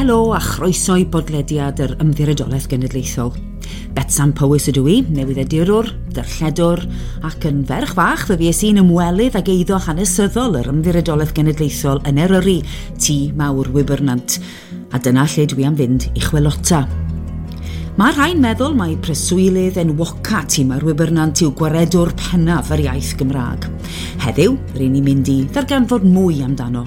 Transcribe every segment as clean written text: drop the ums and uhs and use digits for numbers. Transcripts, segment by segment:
Helo a chroeso i bodlediad yr Ymddiriedolaeth Genedlaethol. Betsan Powys ydw i, newyddiadurwr, darlledwr, ac yn ferch fach fe fues i'n ymwelydd ag eiddo hanesyddol yr Ymddiriedolaeth Genedlaethol yn Eryri, Tŷ Mawr Wybernant. A dyna lle dwi am fynd i chwilota. Mae rhai'n meddwl mai preswylydd enwoca Tŷ Mawr Wybernant yw gwaredwr pennaf yr iaith Gymraeg. Heddiw, ry'n ni'n mynd i ddarganfod mwy amdano.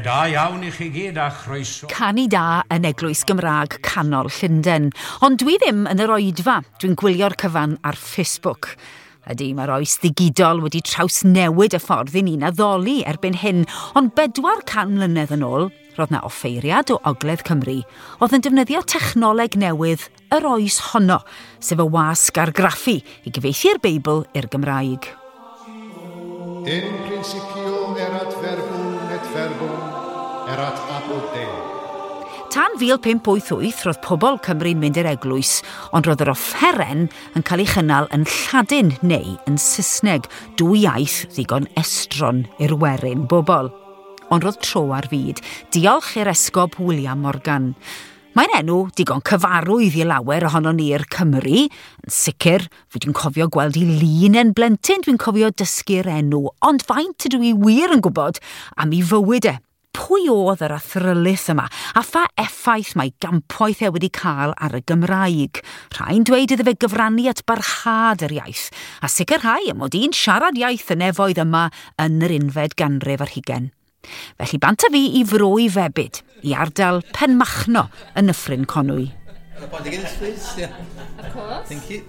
Da iawn i chi gyd a chroeso. Canu da yn Eglwys Gymraeg Canol Llundain. Ond dwi ddim yn yr oedfa. Dwi'n gwylio'r cyfan ar Facebook. Ydy, mae'r oes ddigidol wedi trawsnewid y ffordd i ni'n addoli erbyn hyn, ond 400 mlynedd yn ôl, roedd 'na offeiriad o Ogledd Cymru oedd yn defnyddio technoleg newydd yr oes honno, sef y wasg argraffu i gyfieithu'r Beibl i'r Gymraeg. In principio erat verbum et verbum erat apud Deo. Tan 1588 roedd pobl Cymru'n mynd i'r eglwys, ond roedd yr offeren yn cael ei chynnal yn Lladin neu yn Saesneg, dwy iaith ddigon estron i'r werin bobl. Ond roedd tro ar fyd, diolch i'r esgob William Morgan. Mae'n enw digon cyfarwydd i lawer ohono ni'r Cymry. Yn sicr, fi dwi'n cofio gweld ei lun yn blentyn, dwi'n cofio dysgu'r enw, ond faint ydw i wir yn gwybod am ei fywyd e. Pwy oedd yr athrylith yma, a pha effaith mae gampwaith e wedi cael ar y Gymraeg? Rhai'n dweud iddo fe gyfrannu at barhad yr iaith, a sicrhau y mod i'n siarad iaith y nefoedd yma yn yr unfed ganrif ar hugain. Felly bant â fi i fro i febyd, i ardal Penmachno yn Nyffryn Conwy. A pint of Guinness, please. Yeah. Of course. Thank you.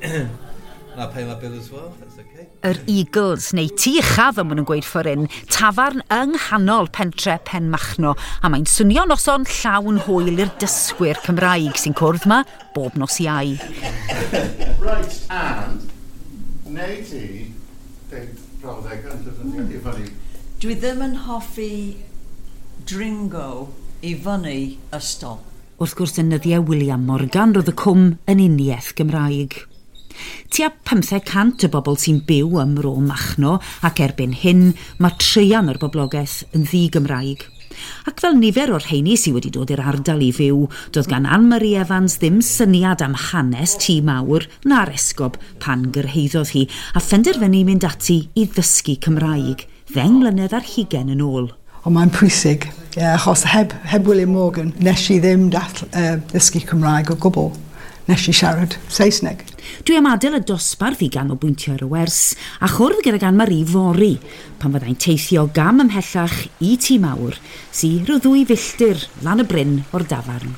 And I'll pay my bill as well, that's okay. Yr Eagles, neu Tŷ Uchaf, fel maen nhw'n gweud ffordd hyn, tafarn yng nghanol pentre Penmachno, a mae'n swnio noson llawn hwyl i'r dysgwyr Cymraeg sy'n cwrdd ma bob nos Iau. Right, and neu ti deud brawddeg yn defnyddio i fyny. Dwi ddim yn hoffi dringo i fyny ystol. Wrth gwrs, yn nyddiau William Morgan roedd y cwm yn uniaith Gymraeg. Tua 500 o bobl sy'n byw ym Mro Machno, ac erbyn hyn mae traean o'r boblogaeth yn ddi-Gymraeg. Ac fel nifer o'r rheini sydd wedi dod i'r ardal i fyw, doedd gan Anne-Marie Evans ddim syniad am hanes Tŷ Mawr na'r esgob pan gyrhaeddodd hi, a phenderfynu mynd ati i ddysgu Cymraeg, 10 mlynedd ar hugain yn ôl. Ond mae'n pwysig, yeah, achos heb William Morgan, nes i ddim ddysgu Cymraeg o gwbl. Nes i siarad Saesneg. Dwi am adael y dosbarth i ganolbwyntio ar y wers a chwrdd gydag Anne-Marie fory, pan fyddai'n teithio gam ymhellach i Tŷ Mawr, sy rhyw 2 filltir lan y bryn o'r dafarn.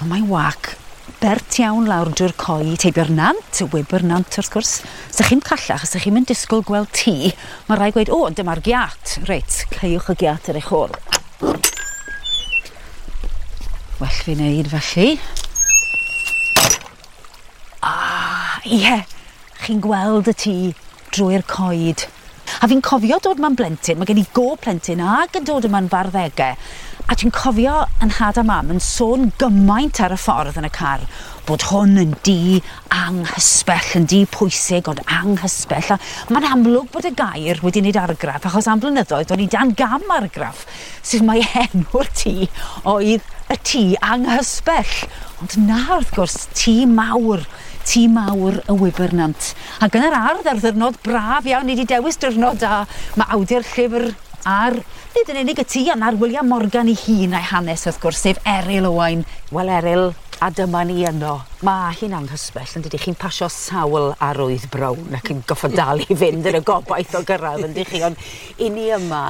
Ond mae wac bert iawn lawr drwy'r coed, heibio'r nant, y Wybr Nant wrth gwrs. Sa chi'n callach, sa chi'n mynd disgwyl gweld tŷ, mae rhaid gweud, o, dyma'r giat. Reit, caewch y giat ar eich ôl. Well fi wneud felly. Ah, ie, chi'n gweld y tŷ drwy'r coed. A fi'n cofio dod ma'n blentyn, mae gen i go plentyn ag yn dod yma'n farddegau. A dwi'n cofio yn nhad a mam yn sôn gymaint ar y ffordd yn y car bod hwn yn dŷ anghysbell, yn dŷ pwysig ond anghysbell. A mae'n amlwg bod y gair wedi wneud argraff, achos am blynyddoedd o'n i dan gam argraff, sef mai enw'r tŷ oedd y tŷ anghysbell. Ond na, wrth gwrs, tŷ mawr, tŷ mawr y Wybernant. Ac yn yr ardd ar ddiwrnod braf iawn, ni wedi dewis diwrnod da, mae awdur llyfr ar, nid yn unig y tŷ, ond ar William Morgan ei hun a'i hanes, wrth gwrs, sef Eryl Owain. Wel, Eryl, a dyma ni yno. Mae hi'n anghysbell, yn dydi? Chi'n pasio sawl arwydd brown ac yn goffod dal i fynd yn y gobaith o gyrraedd, yn dych chi? Ond i ni yma,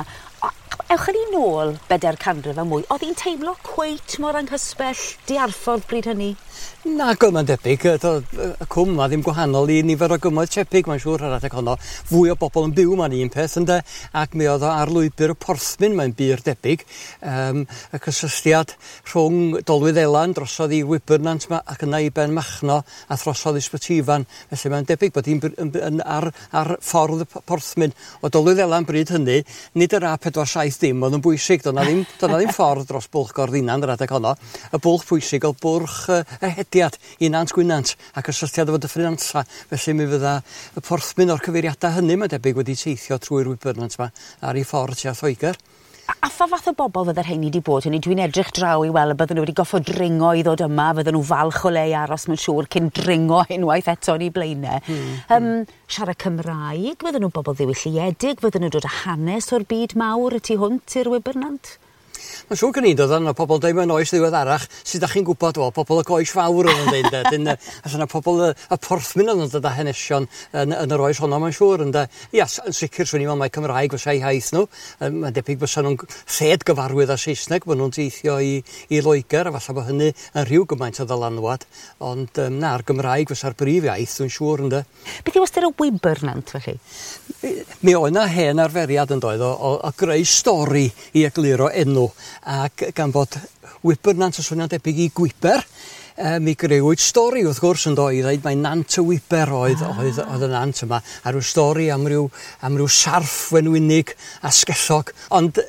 Ewch ni nôl 400 a mwy, oedd hi'n teimlo cweit mor anghysbell diarffordd bryd hynny? Nag oedd, mae'n debyg. Y cwm 'ma ddim gwahanol i nifer o gymoedd tebyg, mae'n siŵr, ar adeg honno. Fwy o bobl yn byw 'ma'n un peth, ynde? Ac mi oedd o ar lwybr y porthmyn, mae'n bur debyg. Y cysylltiad rhwng Dolwyddelan drosodd i Wybyrnant 'ma ac yna i Benmachno a throsodd i Sbyty Ifan. Felly mae'n debyg bod hi'n yn ar ffordd y porthmyn. O Dolwyddelan bryd hynny, nid yr A470 oedd yn bwysig, doedd 'na ddim, doedd 'na ddim ffordd dros Bwlch Gorddinan yr adeg honno. Y bwlch pwysig oedd bwrch y hediad i Nant Gwynant a cysylltiad efo Dyffryn Nantlla. Felly mi fydda y porthmyn o'r cyfeiriadau hynny, mae'n debyg, wedi teithio trwy'r Wybyrnant 'ma ar ei ffordd tua Lloegr. A pha fath o bobl fydde'r rheini 'di bod? Hynny, dwi'n edrych draw i weld y bydden nhw wedi goffod dringo i ddod yma, fydden nhw falch o le i aros mae'n siŵr cyn dringo unwaith eto yn eu blaenau. Siarad Cymraeg, fydden nhw'n bobl ddiwylliedig, fydden nhw'n dod â hanes o'r byd mawr y tu hwnt i'r Wybyrnant? Mae'n siŵr gen i, doedd yna pobl dweud mewn oes ddiweddarach, sydd â chi'n gwybod, wel, pobl y goes fawr oedd yn dweud, ynde. Dyn, allan yna pobl y porthmyn oedd yn dod â hanesion yn yr oes honno, mae'n siŵr, ynde. Ia, yn sicr, swn i'n meddwl mai Cymraeg fysa eu hiaith nhw. Mae'n debyg fysa nhw'n lled gyfarwydd â Saesneg, bod nhw'n teithio i Loegr, a falle bod hynny yn rhyw gymaint o ddylanwad. Ond na'r Gymraeg fysa'r brif iaith, dwi'n siŵr, ynde. Beth yw ystyr y Wybyrnant, felly? Mi oedd 'na hen arferiad yn doedd o greu stori i egluro enw, ac gan fod Wybyrnant yn swnio'n debyg i gwiber, mi greuwyd stori wrth gwrs yn do i ddeud mai Nant y Wiber oedd y nant yma, a rhyw stori am ryw sarff wenwynig a sgellog. Ond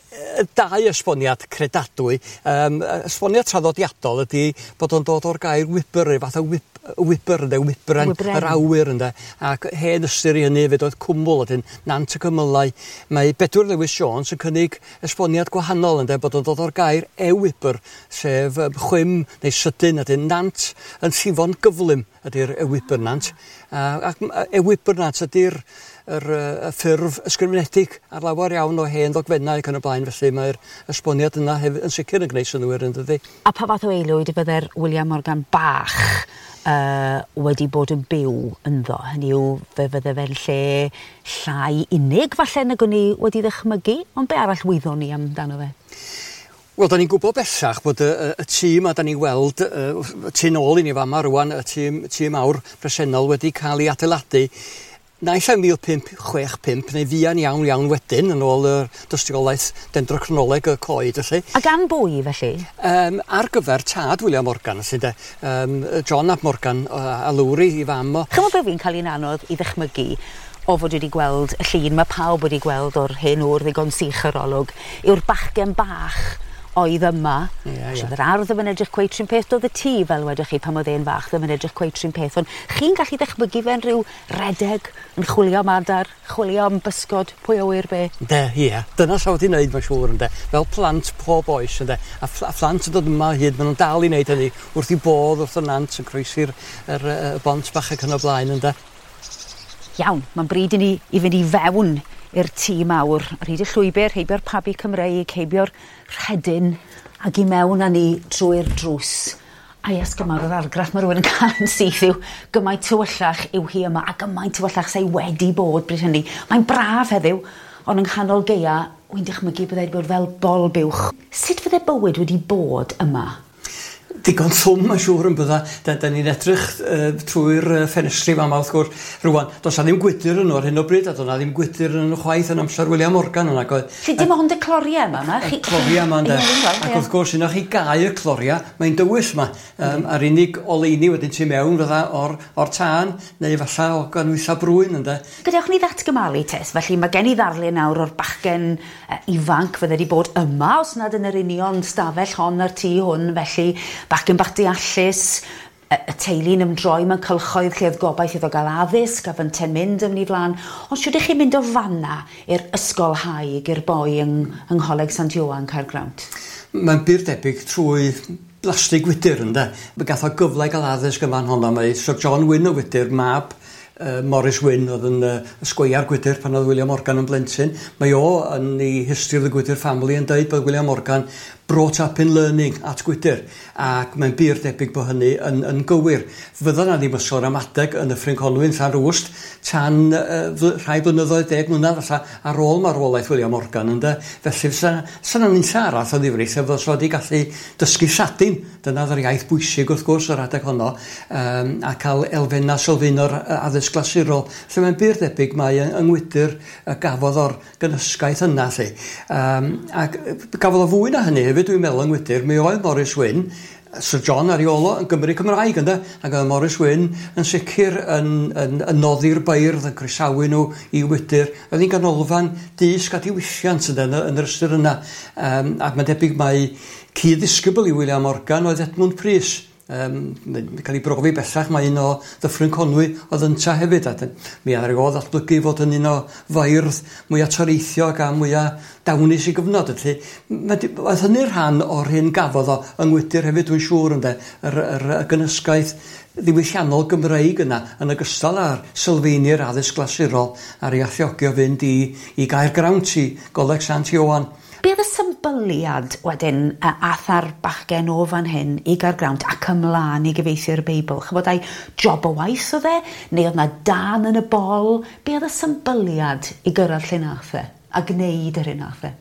dau esboniad credadwy. Esboniad traddodiadol ydy bod o'n dod o'r gair wiber, rhyw fath o wiber ynde, wybren, Wybren. Yr awyr ynde, ac hen ystyr i hynny hefyd oedd cwmwl, wedyn Nant y Cymylau. Mae Bedwyr Lewis Jones yn cynnig esboniad gwahanol ynde, bod o'n dod o'r gair ewybr, sef chwim neu sydyn, ydyn nant yn llifo'n gyflym ydy'r ewybyrnant. Ac ewybyrnant ydy'r y ffurf ysgrifenedig ar lawer iawn o hen ddogfennau ac yn y blaen, felly mae'r esboniad yna hefyd yn sicr yn gwneud synnwyr yn dydi. A pa fath o aelwyd fydde'r William Morgan bach wedi bod yn byw ynddo? Hynny yw, fe fydde fe'n lle llai unig falle nag o'n i wedi ddychmygu, ond be arall wyddon ni amdano fe? Wel, da ni'n gwybod bellach bod y tŷ 'ma da ni'n weld y tu nôl i ni fama rwan, y tŷ mawr presennol wedi cael ei adeiladu naill ai 1565 neu fuan iawn iawn wedyn yn ôl y dystiolaeth dendrocronoleg y coed felly. A gan bwy felly? Ar gyfer tad William Morgan, felly de, John ap Morgan a Lowri i fam o. Chymod be fi'n cael un anodd i ddychmygu o fod wedi gweld y llun mae pawb wedi gweld o'r hen ŵr ddigon sych yr olwg, yw'r bachgen bach oedd yma. Ie, ie. Oedd yr ardd ddim yn edrych cweit rhywun peth, doedd y tŷ fel wedwch chi pan oedd e'n fach ddim yn edrych cweit rhywun peth, ond chi'n gallu ddychmygu fe'n rhyw redeg yn chwilio am adar, chwilio am bysgod, pwy a ŵyr be. Ynde, ie. Dyna sa wedi wneud, mae'n siŵr, ynde. Fel plant pob oes, ynde. A phlant yn dod yma o hyd, maen nhw'n dal i wneud hynny wrth i bodd wrth y nant yn croesi'r y bont bach ac yn y blaen, ynde. Iawn, mae'n bryd i ni i fynd i fewn i'r tŷ mawr. Ar hyd y llwybr, heibio'r pabi Cymreig, heibio'r rhedyn, ac i mewn â ni drwy'r drws. A ias gymaint o'r argraff mae rhywun yn cael yn syth yw gymaint tywyllach yw hi yma, a gymaint tywyllach sy'n wedi bod bryd hynny. Mae'n braf heddiw, ond yng nghanol gaea, wy'n dychmygu byddai wedi bod fel bol buwch. Sut fydde bywyd wedi bod yma? Digon llwm, mae'n siŵr yn bydda. Da ni'n edrych trwy'r ffenestri fama wrth gwrs. Rwan, does 'na ddim gwydyr yn ar hyn o bryd, a does 'na ddim gwydyr yn nhw chwaith yn amser William Morgan yna. Oedd, Felly dim ond y cloriau yma, ma? Y cloriau yma, ynde. Ie, fi'n gweld, Ac ie. wrth gwrs, unwaith chi gau y cloriau, mae'n dywyll yma. A'r unig oleuni wedyn tu mewn fydda o'r tân, neu falla o ganwylla brwyn, ynde. Gadewch ni ddatgymalu tes, felly mae gen i ddarlun nawr o'r bachgen ifanc fydde wedi bod yma, os nad yn yr union stafell hon a'r tŷ hwn, felly bachgen bach deallus, y teulu'n ymdroi mewn cylchoedd lle oedd gobaith iddo gael addysg a fynte'n mynd yn ei flaen. Ond siwr ych chi'n mynd o fanna i'r ysgolhaig, i'r boi yng Ngholeg Sant Ioan Caergrawnt? Mae'n bur debyg trwy blastig wydyr, ynde. Mae gath o gyfle i gael addysg yn fan honno. Mae Sir John Wyn o Wydyr, mab Morris Wynne oedd yn ysgweiar Gwydyr pan oedd William Morgan yn blentyn. Mae o yn ei History of the Gwydyr Family yn dweud bod William Morgan brought up in learning at Gwydyr, ac mae'n bur debyg bod hynny yn gywir. Fydda na ddim ysgol ramadeg yn Nyffryn Conwy yn Llanrwst tan rhai blynyddoedd, 10 mlynedd falle, ar ôl marwolaeth William Morgan, ynde. Felly fysa 'na nunlla arall o ddifri lle fysa wedi gallu dysgu Lladin, dyna oedd yr iaith bwysig wrth gwrs yr adeg honno, a cael elfennau sylfaenol addysg glasurol. Felly mae'n bur debyg mai yng Ngwydyr gafodd o'r gynhysgaeth yna, lly. Ac gafodd o fwy na hynny hefyd, dwi'n meddwl, yng Ngwydyr. Mi oedd Morris Wynne, Sir John ar ei ôl o, yn Gymry Cymraeg, ynde? Ac oedd Morris Wynne yn sicr yn noddi'r beirdd, yn croesawu nhw i Wydyr. Oedd hi'n ganolfan dysg a diwylliant, ynde, yn yr ystyr yna. Ac mae'n debyg mai cyd-ddisgybl i William Morgan oedd Edmund Prys. Mae'n cael ei brofi bellach mae un o Ddyffryn Conwy oedd ynta hefyd, a mi ar ôl ddatblygu fod yn un o feirdd mwyaf toreithiog a mwyaf dawnus i gyfnod. Felly, oedd hynny'n rhan o'r hyn gafodd o yng Ngwydyr hefyd, dwi'n siŵr, ynde, yr gynhysgaeth ddiwylliannol Gymreig yna, yn ogystal â'r sylfaeni'r addysg glasurol a'r ei alluogi o fynd i Gaergrawnt, i Goleg Sant Ioan. Be oedd y symbyliad wedyn ath ar bachgen o fan hyn i Gaergrawnt ac ymlaen i gyfieithu'r Beibl? Chybod, ai job o waith oedd e? Neu oedd na dan yn y bol? Be oedd y symbyliad i gyrraedd lle nath e a gwneud yr hyn nath e?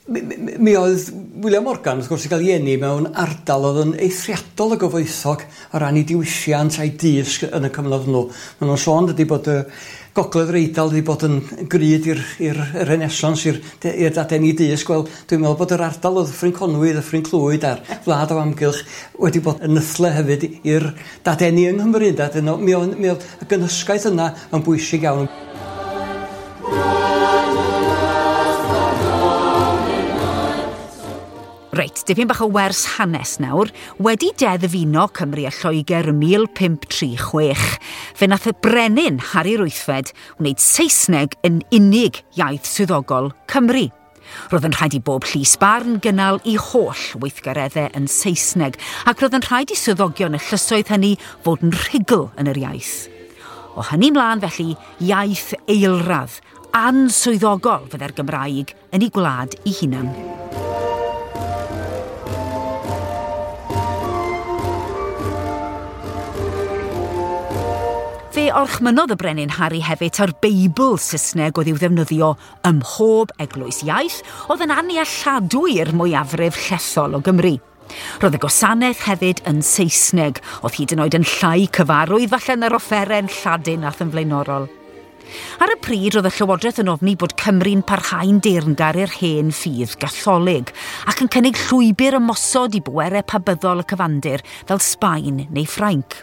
Mi oedd William Morgan, wrth gwrs, i gael ei eni mewn ardal oedd yn eithriadol o gyfoethog o ran ei diwylliant a'i dysg yn y cyfnod hwnnw. Maen nhw'n sôn dydy bod y Gogledd yr Eidal wedi bod yn grud i'r Renaissance, i'r dadeni dysg. Wel, dwi'n meddwl bod yr ardal o Ddyffryn Conwy, Ddyffryn Clwyd a'r wlad o amgylch wedi bod yn nythle hefyd i'r dadeni yng Nghymru. Mi oedd y gynhysgaeth yna yn bwysig iawn. Reit, dipyn bach o wers hanes nawr. Wedi deddfuno Cymru a Lloegr ym 1536, fe nath y brenin Harri'r Wythfed wneud Saesneg yn unig iaith swyddogol Cymru. Roedd yn rhaid i bob llys barn gynnal i holl weithgareddau yn Saesneg, ac roedd yn rhaid i swyddogion y llysoedd hynny fod yn rhugl yn yr iaith. O hynny mlaen felly, iaith eilradd, answyddogol fydde'r Gymraeg yn ei gwlad ei hunan. Fe orchmynodd y brenin Harri hefyd ta'r Beibl Saesneg oedd i'w ddefnyddio ym mhob eglwys iaith oedd yn annealladwy i'r mwyafrif llethol o Gymru. Roedd y gwasanaeth hefyd yn Saesneg, oedd hyd yn oed yn llai cyfarwydd falle na'r offeren Lladin ath yn flaenorol. Ar y pryd roedd y Llywodraeth yn ofni bod Cymru'n parhau'n deyrngar i'r hen ffydd Gatholig ac yn cynnig llwybr ymosod i bwerau pabyddol y cyfandir fel Sbaen neu Ffrainc.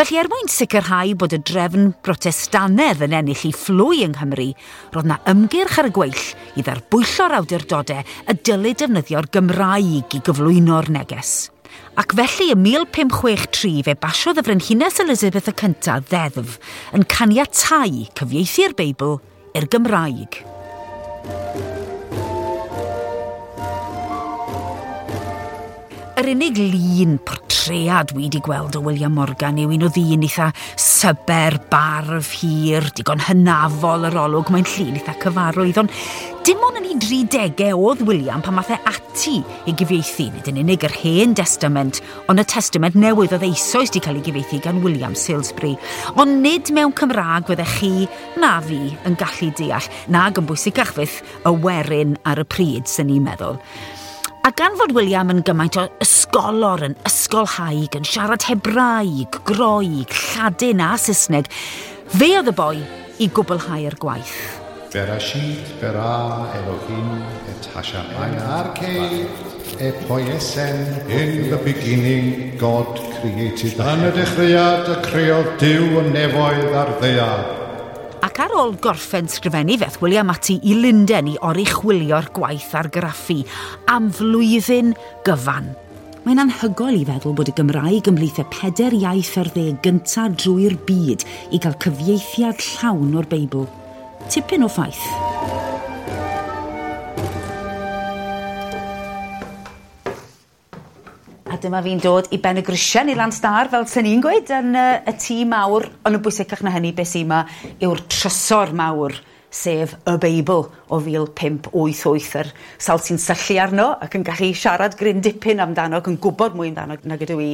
Felly er mwyn sicrhau bod y drefn Brotestanedd yn ennill ei phlwy yng Nghymru, roedd na ymgyrch ar y gweill i ddarbwyllo'r awdurdodau y dylid defnyddio'r Gymraeg i gyflwyno'r neges. Ac felly ym 1563 fe basiodd y Frenhines Elizabeth y Cyntaf ddeddf yn caniatáu cyfieithu'r Beibl i'r Gymraeg. Yr unig lun portread wi wedi gweld o William Morgan yw un o ddyn eitha syber, barf hir, digon hynafol yr olwg, mae'n llun eitha cyfarwydd, ond dim ond yn ei 30au oedd William pan math e ati i gyfieithu, nid yn unig yr Hen Testament, ond y Testament Newydd oedd eisoes wedi cael ei gyfieithu gan William Salesbury. Ond nid mewn Cymraeg fyddech chi na fi yn gallu deall, nag yn bwysicach fyth y werin ar y pryd, sy'n ni'n meddwl. A gan fod William yn gymaint o ysgolor, yn ysgolhaig, yn siarad Hebraeg, Groeg, Lladin a Saesneg, fe oedd y boi i gwblhau'r gwaith. Berashit bara Elohim et hashamayim arche e poiesen. In the beginning God created the Yn y dechreuad y creodd Duw y nefoedd a'r ddaear. Ac ar ôl gorffen sgrifennu feth William ati i Lunden i oruchwylio'r gwaith argraffu am flwyddyn gyfan. Mae'n anhygoel i feddwl bod y Gymraeg ymhlith y 4 iaith ar 10 gyntaf drwy'r byd i gael cyfieithiad llawn o'r Beibl. Tipyn o ffaith. A dyma fi'n dod i ben y grisiau i Lanstar, fel sy'n ni'n gweud, yn y tŷ mawr, ond yn bwysicach na hynny, beth sy'n yma yw'r trysor mawr, sef y Beibl o 1588, yr sawl sy'n syllu arno ac yn gallu siarad gryn dipyn amdano ac yn gwybod mwy amdano nag ydw i,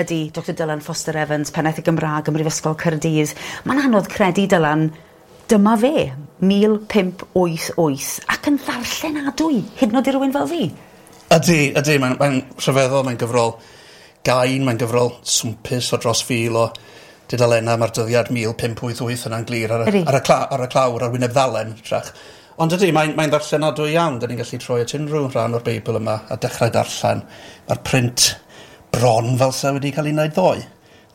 ydy Dr Dylan Foster Evans, pennaeth y Gymraeg ym Mhrifysgol Caerdydd. Mae'n anodd credu, Dylan, dyma fe, 1588, ac yn ddarllenadwy, hyd yn oed i rywun fel fi. Ydy, ydy, mae'n rhyfeddol, mae'n gyfrol gain, mae'n gyfrol swmpus o dros 1,000 o dudalennau, mae'r dyddiad 1588 yna'n glir ar y clawr, ar wyneb ddalen, trach. Ond ydy, mae'n ddarllenadwy iawn, da ni'n gallu troi at unrhyw rhan o'r Beibl yma a dechrau darllen. Mae'r print bron fel sa wedi cael ei wneud ddoe.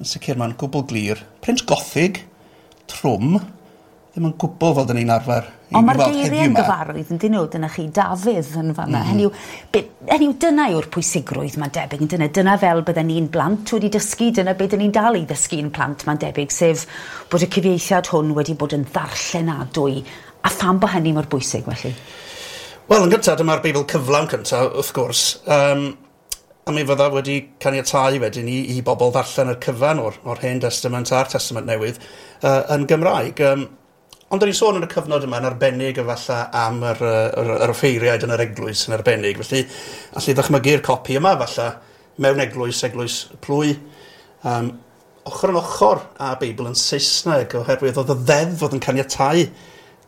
Yn sicr mae'n gwbl glir. Print gothig, trwm, ddim yn gwbl fel dyn ni'n arfer i Ond mae'r weld geiriau heddiw yn 'ma. gyfarwydd yn dyn nhw, dyna chi Dafydd yn fanna. Hynny yw, dyna yw'r pwysigrwydd mae'n debyg, yn dyna. Dyna fel bydden ni'n blant wedi dysgu, dyna beth dyn ni'n dal i ddysgu yn plant mae'n debyg, sef bod y cyfieithiad hwn wedi bod yn ddarllenadwy. A pham bod hynny mor bwysig felly? Wel, yn gyntaf, dyma'r Beibl cyflawn cyntaf, wrth gwrs. A mi fydda wedi caniatáu wedyn i bobl ddarllen y cyfan o'r Hen Testament a'r Testament Newydd yn Gymraeg. Ond da ni'n sôn yn y cyfnod yma yn arbennig efallai am yr offeiriaid yn yr eglwys yn arbennig. Felly, allu ddychmygu'r copi yma efallai mewn eglwys, eglwys plwy, ochr yn ochr â Beibl yn Saesneg, oherwydd oedd y ddeddf oedd yn caniatáu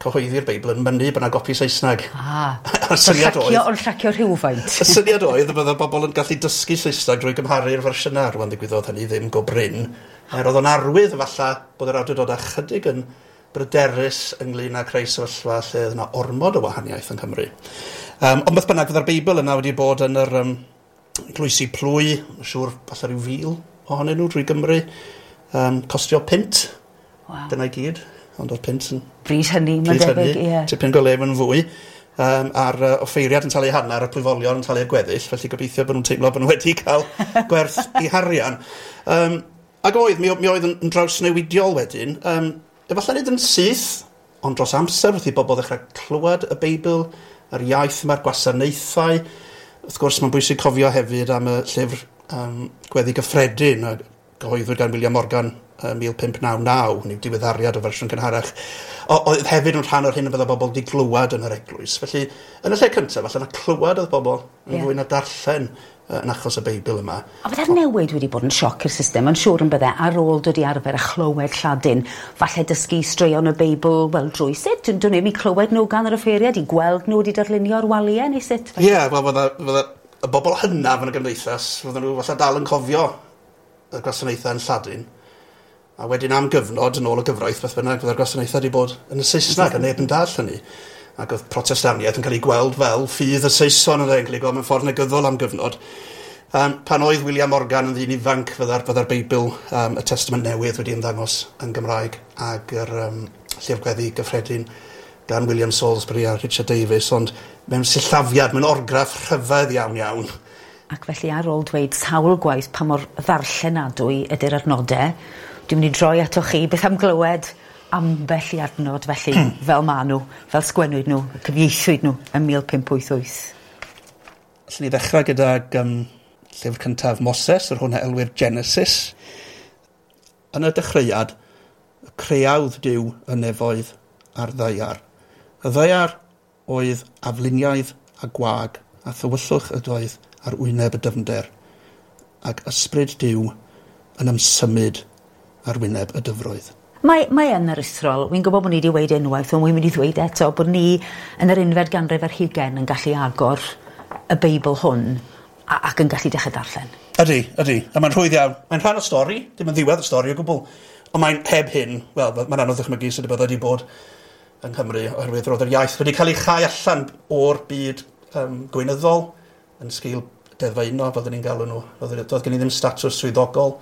cyhoeddi'r Beibl yn mynnu bod yna gopi Saesneg. A'r syniad oedd... Ond llacio rhywfaint. Y syniad oedd y bydde bobl yn gallu dysgu Saesneg drwy gymharu'r fersiynau. Rwan ddigwyddodd hynny ddim go brin. Er oedd o'n arwydd efallai bod yr awdurdod ychydig yn bryderus ynglyn â creu sefyllfa lle oedd yna ormod o wahaniaeth yng Nghymru. Ond beth bynnag, fydda'r Beibl yna wedi bod yn yr eglwysi plwy, yn siŵr falle rhyw 1,000 ohonyn nhw drwy Gymru, costio £5. Wow. Dyna i gyd, ond oedd pint yn... Bryd hynny, mae'n debyg, ie. Tipyn go lef yn fwy. A'r offeiriad yn talu hanner, y plwyfolion yn talu'r gweddill, felly gobeithio bod nhw'n teimlo bod nhw wedi cael gwerth i harian. Ac oedd, mi oedd yn drawsnewidiol wedyn. Efallai nid yn syth, ond dros amser wrth i bobl ddechrau clywed y Beibl, yr iaith yma'r gwasanaethau. Wrth gwrs, mae'n bwysig cofio hefyd am y llyfr Gweddi Gyffredin, a gyhoeddwyd gan William Morgan 1599, neu diweddariad o fersiwn cynharach. Oedd hefyd yn rhan o'r hyn y bydde bobl wedi glywed yn yr eglwys. Felly, yn y lle cyntaf, falle na clywed oedd bobl yn fwy na darllen yn achos y Beibl yma. A bydde'r newid wedi bod yn sioc i'r system, yn siŵr yn bydde, ar ôl dod i arfer a chlywed Lladin, falle dysgu straeon y Beibl, wel, drwy sut? Dwi'n ddim i clywed nhw gan yr offeiriad, i gweld nhw wedi darlunio'r waliau, neu sut? Ie, wel, fydde y bobl hynaf yn y gymdeithas, fydden nhw falle dal yn cofio y gwasanaethau yn Lladin, a wedyn am gyfnod, yn ôl y gyfraith, beth bynnag, fydde'r gwasanaethau wedi bod yn y Saesneg, a neb yn dall hynny. Ac oedd Protestaniaeth yn cael ei gweld fel ffydd y Saeson yn cael ei gweld mewn ffordd negyddol am gyfnod. Pan oedd William Morgan yn ddyn ifanc, fydda'r Beibl, y Testament Newydd wedi ymddangos yn Gymraeg, ac yr Llyfr Gweddi Gyffredin gan William Salisbury a Richard Davies, ond mewn sillafiad, mewn orgraff rhyfedd iawn iawn. Ac felly ar ôl dweud sawl gwaith pa mor ddarllenadwy ydy'r adnodau, dwi'n mynd i droi atoch chi beth am glywed ambell i adnod felly, fel ma nhw, fel sgwennwyd nhw, cyfieithwyd nhw yn 1588. Allen ni ddechrau gydag llyfr cyntaf Moses, yr hwn a elwir Genesis. Yn y dechreuad, y creawdd Duw y nefoedd a'r ddaear. Y ddaear oedd afluniaidd a gwag, a thywyllwch ydoedd ar wyneb y dyfnder, ac ysbryd Duw yn ymsymud ar wyneb y dyfroedd. Mae yn aruthrol. Wi'n gwybod bod ni wedi dweud unwaith, ond wi'n mynd i ddweud eto bod ni yn yr unfed ganrif ar hugain yn gallu agor y Beibl hwn ac yn gallu dechrau darllen. Ydy, ydy. A mae'n rhwydd iawn. Mae'n rhan o stori, dim yn ddiwedd y stori o gwbl. Ond mae'n heb hyn, wel, mae'n anodd ddychmygu sut y byddai wedi bod yng Nghymru, oherwydd roedd yr iaith wedi cael ei chau allan o'r byd gweinyddol yn sgil deddfau uno, fel dyn ni'n galw nhw. Doedd gen i ddim statws swyddogol.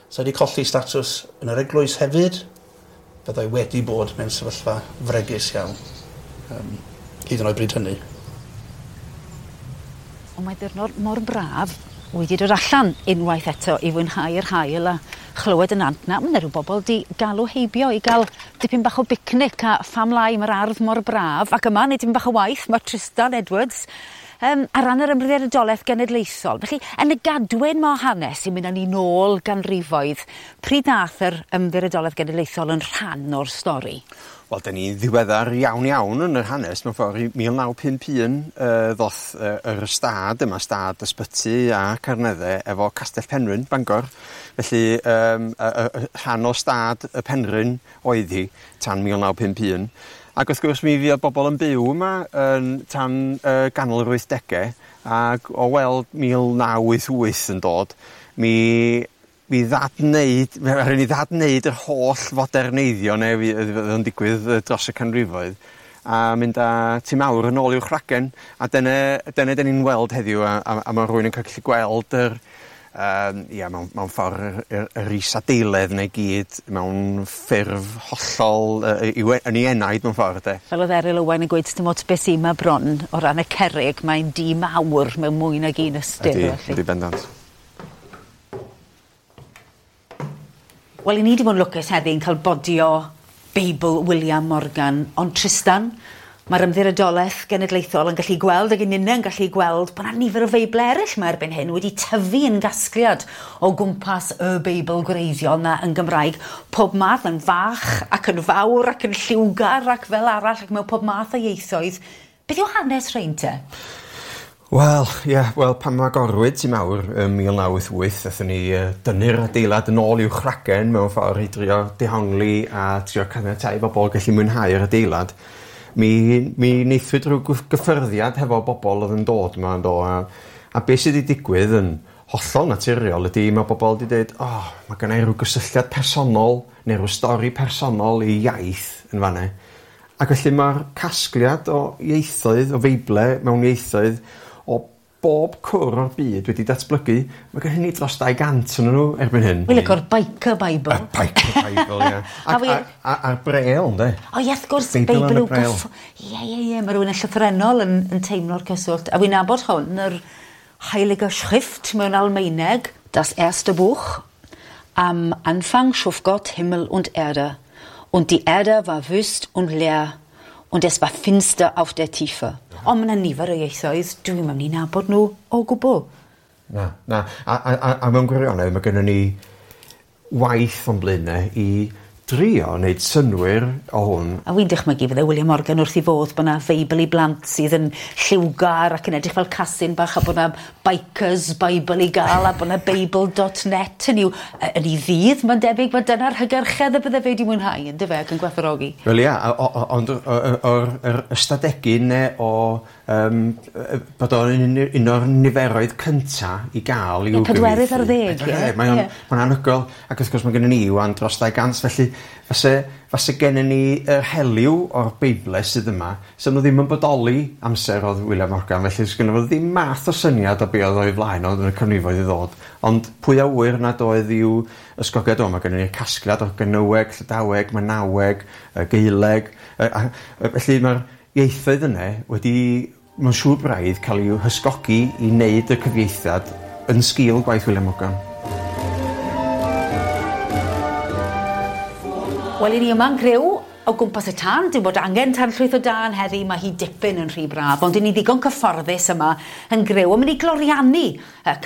So wedi colli statws yn yr eglwys hefyd. Byddai wedi bod mewn sefyllfa fregus iawn, hyd yn oed bryd hynny. Ond mae diwrnod mor braf wedi dod allan unwaith eto i fwynhau'r haul a chlywed y nant na. Mae 'na ryw bobl di galw heibio i gael dipyn bach o bicnic a pham lai mae'r ardd mor braf. Ac yma, neu dipyn bach o waith, mae Tristan Edwards ar ran yr Ymddiriedolaeth Genedlaethol. Felly, yn y gadwyn ma o hanes sy'n mynd â ni nôl ganrifoedd, pryd nath yr Ymddiriedolaeth Genedlaethol yn rhan o'r stori? Wel, 'dan ni'n ddiweddar iawn iawn yn yr hanes mewn ffordd. I 1951 ddoth yr ystâd yma, stad ysbyty a Carnedde efo Castell Penrhyn, Bangor. Felly y rhan o stad y Penrhyn oedd hi tan 1951. Ac wrth gwrs mi fuodd bobl yn byw yma yn tan ganol yr 80au, ac o weld 1988 yn dod, mi ddadwneud, mi rhaid ni ddadwneud yr holl foderneiddio neu fydd yn digwydd dros y canrifoedd, a mynd â Tŷ Mawr yn ôl i'w chragen, a dyna 'dan ni'n weld heddiw, a ma' rhywun yn gallu gweld yr ia, mewn ffordd yr isadeiledd 'na i gyd mewn ffurf hollol yn ei enaid mewn ffordd de. Fel oedd Eryl Owen yn gweud, dim ots beth sy'n ma bron o ran y cerrig, mae'n dŷ mawr mewn mwy nag un ystyr. Ydy, ydy bendant. Wel, i ni wedi bod yn lwcus heddi yn cael bodio Beibl William Morgan, ond Tristan, mae'r Ymddiriedolaeth Genedlaethol yn gallu gweld, ac yn yn gallu gweld, bod yna nifer o Feibl eraill yma erbyn hyn wedi tyfu yn gasgliad o gwmpas y Beibl gwreiddiol na yn Gymraeg. Pob math yn fach ac yn fawr ac yn lliwgar ac fel arall ac mewn pob math o ieithoedd. Beth yw hanes rhein te? Wel, ie, wel, pan agorwyd Tŷ Mawr ym 1988, aethon ni dynnu'r adeilad yn ôl i'w chragen mewn ffordd i drio dehongli a trio caniatáu i bobl gallu mwynhau'r adeilad. Mi wnaethwyd rhyw gyffyrddiad hefo bobl oedd yn dod yma, yn do, a beth sydd wedi digwydd yn hollol naturiol ydy mae bobl wedi dweud, oh, mae gennai rhyw gysylltiad personol neu rhyw stori personol i iaith yn fanna. Ac felly mae'r casgliad o ieithoedd, o Feible mewn ieithoedd, o bob cwr o'r byd wedi datblygu. Mae gen ni dros 200 yn nhw erbyn hyn. Wy'n licio'r Biker Bible. Y Biker Bible, ie. A'r Braille, ynddo? O, ie, wrth gwrs, Beibl yw gyff... Ie, mae rhywun yn llythrennol yn teimlo'r cyswllt. A wy'n nabod hwn, yr Heilige Schrift mewn Almaeneg, Das erste Buch. Am Anfang schuf Gott Himmel und Erde. Und die Erde war wüst und leer. Und es war finster auf der Tiefe. Ond mae yna nifer o ieithoedd, dwi'n mynd i nabod nhw o gwbl. Na. A mewn gwirionedd, mae gennym ni waith o'n blaenau i drio wneud synnwyr o hwn. A wy'n dychmygu fydde William Morgan wrth i fodd bod yna Feibl i blant sydd yn lliwgar ac yn edrych fel casyn bach a bod yna Bikers Bible i gael a bod yna Beibl.net yn ei ddydd. Mae'n debyg bod dyna'r hygyrchedd y bydde fe wedi mwynhau, yn dyfe, ac yn gwerthfawrogi. Wel ia, ond o'r ystadegyn ne o bod o'n un o'r niferoedd cynta i gael i'w gyfieithu. 40, ie. Mae'n anhygoel, ac wrth gwrs mae gennym ni ŵan dros 200, felly fase gennym ni yr helyw o'r Beible sydd yma, so nhw ddim yn bodoli amser oedd William Morgan, felly sgynno fo ddim math o syniad o be oedd o'i flaen oedd yn y canrifoedd i ddod. Ond pwy a ŵyr nad oedd i'w ysgogiad o, mae gennym ni'r casgliad o Gernyweg, Llydaweg, Manaweg, Gaeleg, felly mae'r ieithoedd yna wedi, mae'n siŵr braidd, cael i'w hysgogi i wneud y cyfieithiad yn sgil gwaith William Morgan. Wel, i ni yma'n griw o gwmpas y tân, dim bod angen tan llwyth o dân heddi, mae hi dipyn yn rhy braf, ond i ni ddigon cyfforddus yma yn griw. Ond mynd i gloriannu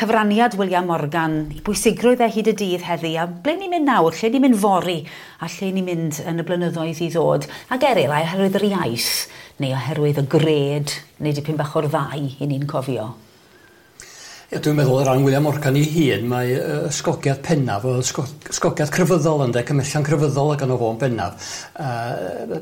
cyfraniad William Morgan i bwysigrwydd e hyd y dydd heddi, a ble ni'n mynd nawr, lle ni'n mynd fory, a lle ni'n mynd yn y blynyddoedd i ddod. Ac Eryl, oherwydd yr iaith, neu oherwydd y gred, neu dipyn bach o'r ddau i ni'n cofio. Ie, dwi'n meddwl o ran William Morgan ei hun, mae ysgogiad pennaf, ysgogiad crefyddol ynde, cymhellion crefyddol ac yno fo'n bennaf.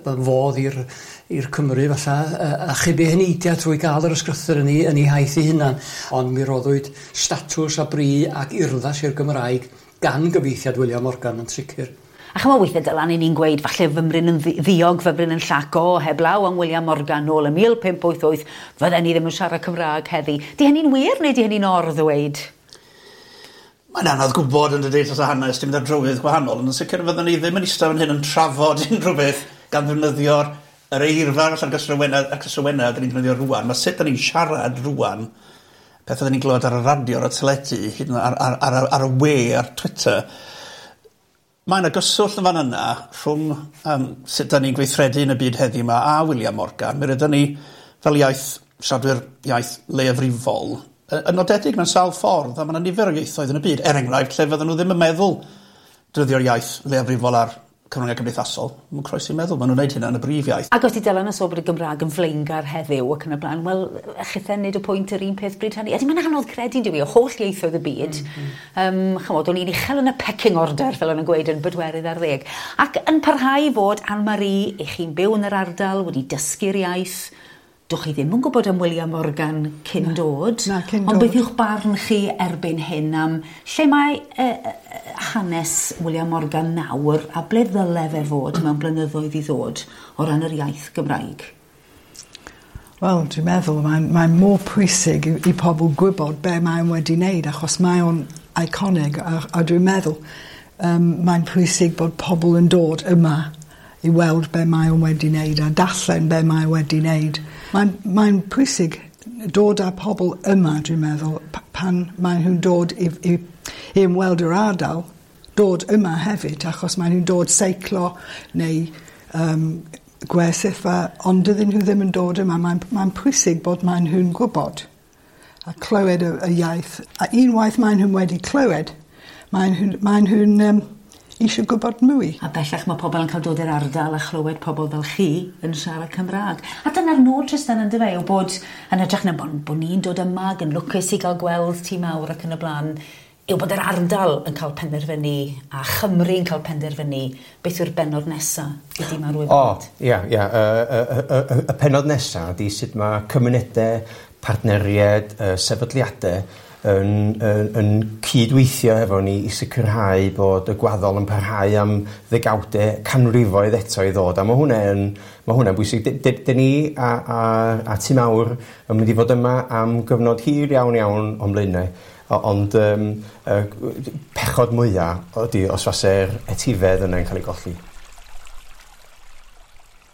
Fodd i'r Cymru falla, achub ei heneidiau trwy gael yr ysgrythur yn ei haith ei hunan. Ond mi roddwyd statws a bri ac urddas i'r Gymraeg gan gyfieithiad William Morgan yn sicr. A chymod weithiau Dylan, i ni'n gweud, falle fymryn yn ddiog, fymryn yn llaco, heblaw am William Morgan nôl ym 1588, fydden ni ddim yn siarad Cymraeg heddi. Di hynny'n wir neu di hynny'n or-ddweud? Mae'n anodd gwybod yn dydy dros y hanes, dim mynd ar drywydd gwahanol, ond yn sicr fydden ni ddim yn eistedd fan hyn yn trafod unrhyw beth gan ddefnyddio'r yr eirfa allan gysrywennau dyn ni'n defnyddio rŵan. Mae sut dyn ni'n siarad rŵan, pethau dyn ni'n glywed ar y radio, ar y teledu, hyd yn oed ar y we, ar Twitter. Mae yna gyswllt yn fan yna rhwng sut da ni'n gweithredu yn y byd heddiw yma a William Morgan. Mi rydyn ni fel iaith siaradwyr iaith leiafrifol yn nodedig mewn sawl ffordd, a mae yna nifer o ieithoedd yn y byd, er enghraifft, lle fydden nhw ddim yn meddwl defnyddio'r iaith leiafrifol ar cyfryngau cymdeithasol. Mae'n croesi meddwl, maen nhw'n gwneud hynna yn y brif iaith. Ac os ti Dylan yn sôn bod y Gymraeg yn flaengar heddiw ac yn y blaen, wel, chithe nid y pwynt yr un peth bryd hynny. Ydy, mae'n anodd credu, dyw i, o holl ieithoedd y byd. Chymod, o'n i'n uchel yn y pecking order, fel o'n nhw'n gweud, yn bedwerydd ar ddeg. Ac yn parhau fod Anne-Marie, i chi'n byw yn yr ardal, wedi dysgu'r iaith, Dwch chi ddim yn gwybod am William Morgan cyn dod. Na, cyn Ond dod. beth yw'ch barn chi erbyn hyn am lle mae hanes William Morgan nawr a ble ddyle fe fod mewn blynyddoedd i ddod o ran yr iaith Gymraeg? Wel, dwi'n meddwl mae'n mor pwysig i pobl gwybod be mae'n wedi wneud, achos mae o'n iconig, a dwi'n meddwl mae'n pwysig bod pobl yn dod yma i weld be mae o'n wedi wneud a darllen be mae wedi wneud. Mae'n pwysig dod â pobl yma, dwi'n meddwl, pan maen nhw'n dod i ymweld yr ardal, dod yma hefyd, achos maen nhw'n dod seiclo neu gwersylla, ond dydyn nhw ddim yn dod yma. Mae'n pwysig bod maen nhw'n gwybod a clywed y iaith. A unwaith maen nhw'n wedi clywed, maen nhw'n eisiau gwybod mwy. A bellach mae pobl yn cael dod i'r ardal a chlywed pobl fel chi yn siarad Cymraeg. A dyna'r nod, Tristan, yn dyfe, yw bod yn hytrach na bod ni'n dod yma ac yn lwcus i gael gweld Tŷ Mawr ac yn y blaen, yw bod yr ardal yn cael penderfynu a Chymru yn cael penderfynu beth yw'r bennod nesa i Dŷ Mawr O, Wybrnant. ia, ia. Y pennod nesa ydy sut mae cymunedau, partneriaid, sefydliadau yn cydweithio efo ni i sicrhau bod y gwaddol yn parhau am ddegawdau, canrifoedd eto i ddod. A mae hwnna'n bwysig. Dyn ni a Tŷ Mawr yn mynd i fod yma am gyfnod hir iawn iawn o'n blaenau. Ond pechod mwyaf ydy os fase'r etifedd yna'n cael ei golli.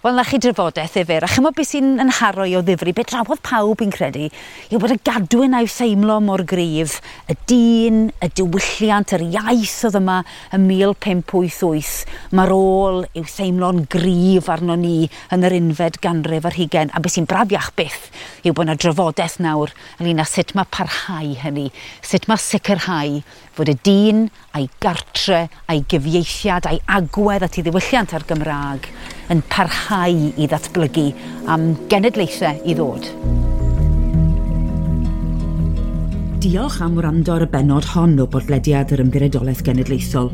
Wel, na chi drafodaeth ddifyr, a chymod beth sy'n yn haro i o ddifri, beth drawodd pawb i'n credu, yw bod y gadwyn a'i theimlo mor gryf, y dyn, y diwylliant, yr iaith oedd yma ym 1588, mae'r ôl i'w theimlo'n gryf arno ni yn yr unfed ganrif ar hugain, a beth sy'n brafiach byth yw bod yna drafodaeth nawr ynglyn â sut mae parhau hynny, sut mae sicrhau fod y dyn a'i gartre, a'i gyfieithiad, a'i agwedd at ei ddiwylliant ar Gymraeg yn parhau i ddatblygu am genedlaethau i ddod. Diolch am wrando ar y bennod hon o bodlediad yr Ymddiriedolaeth Genedlaethol.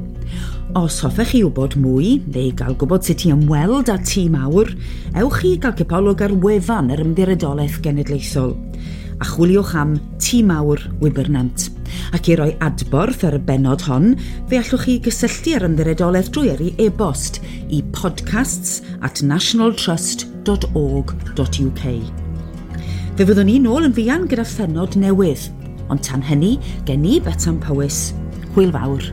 Os hoffech chi wybod mwy, neu gael gwybod sut i ymweld â Tŷ Mawr, ewch i gael cipolwg ar wefan yr Ymddiriedolaeth Genedlaethol a chwiliwch am Tŷ Mawr Wybrnant. Ac i roi adborth ar y bennod hon, fe allwch chi gysylltu â'r Ymddiriedolaeth drwy yrru e-bost i podcasts@nationaltrust.org.uk. Fe fyddwn ni nôl yn fuan gyda phennod newydd, ond tan hynny, gen i Betsan Powys, hwyl fawr.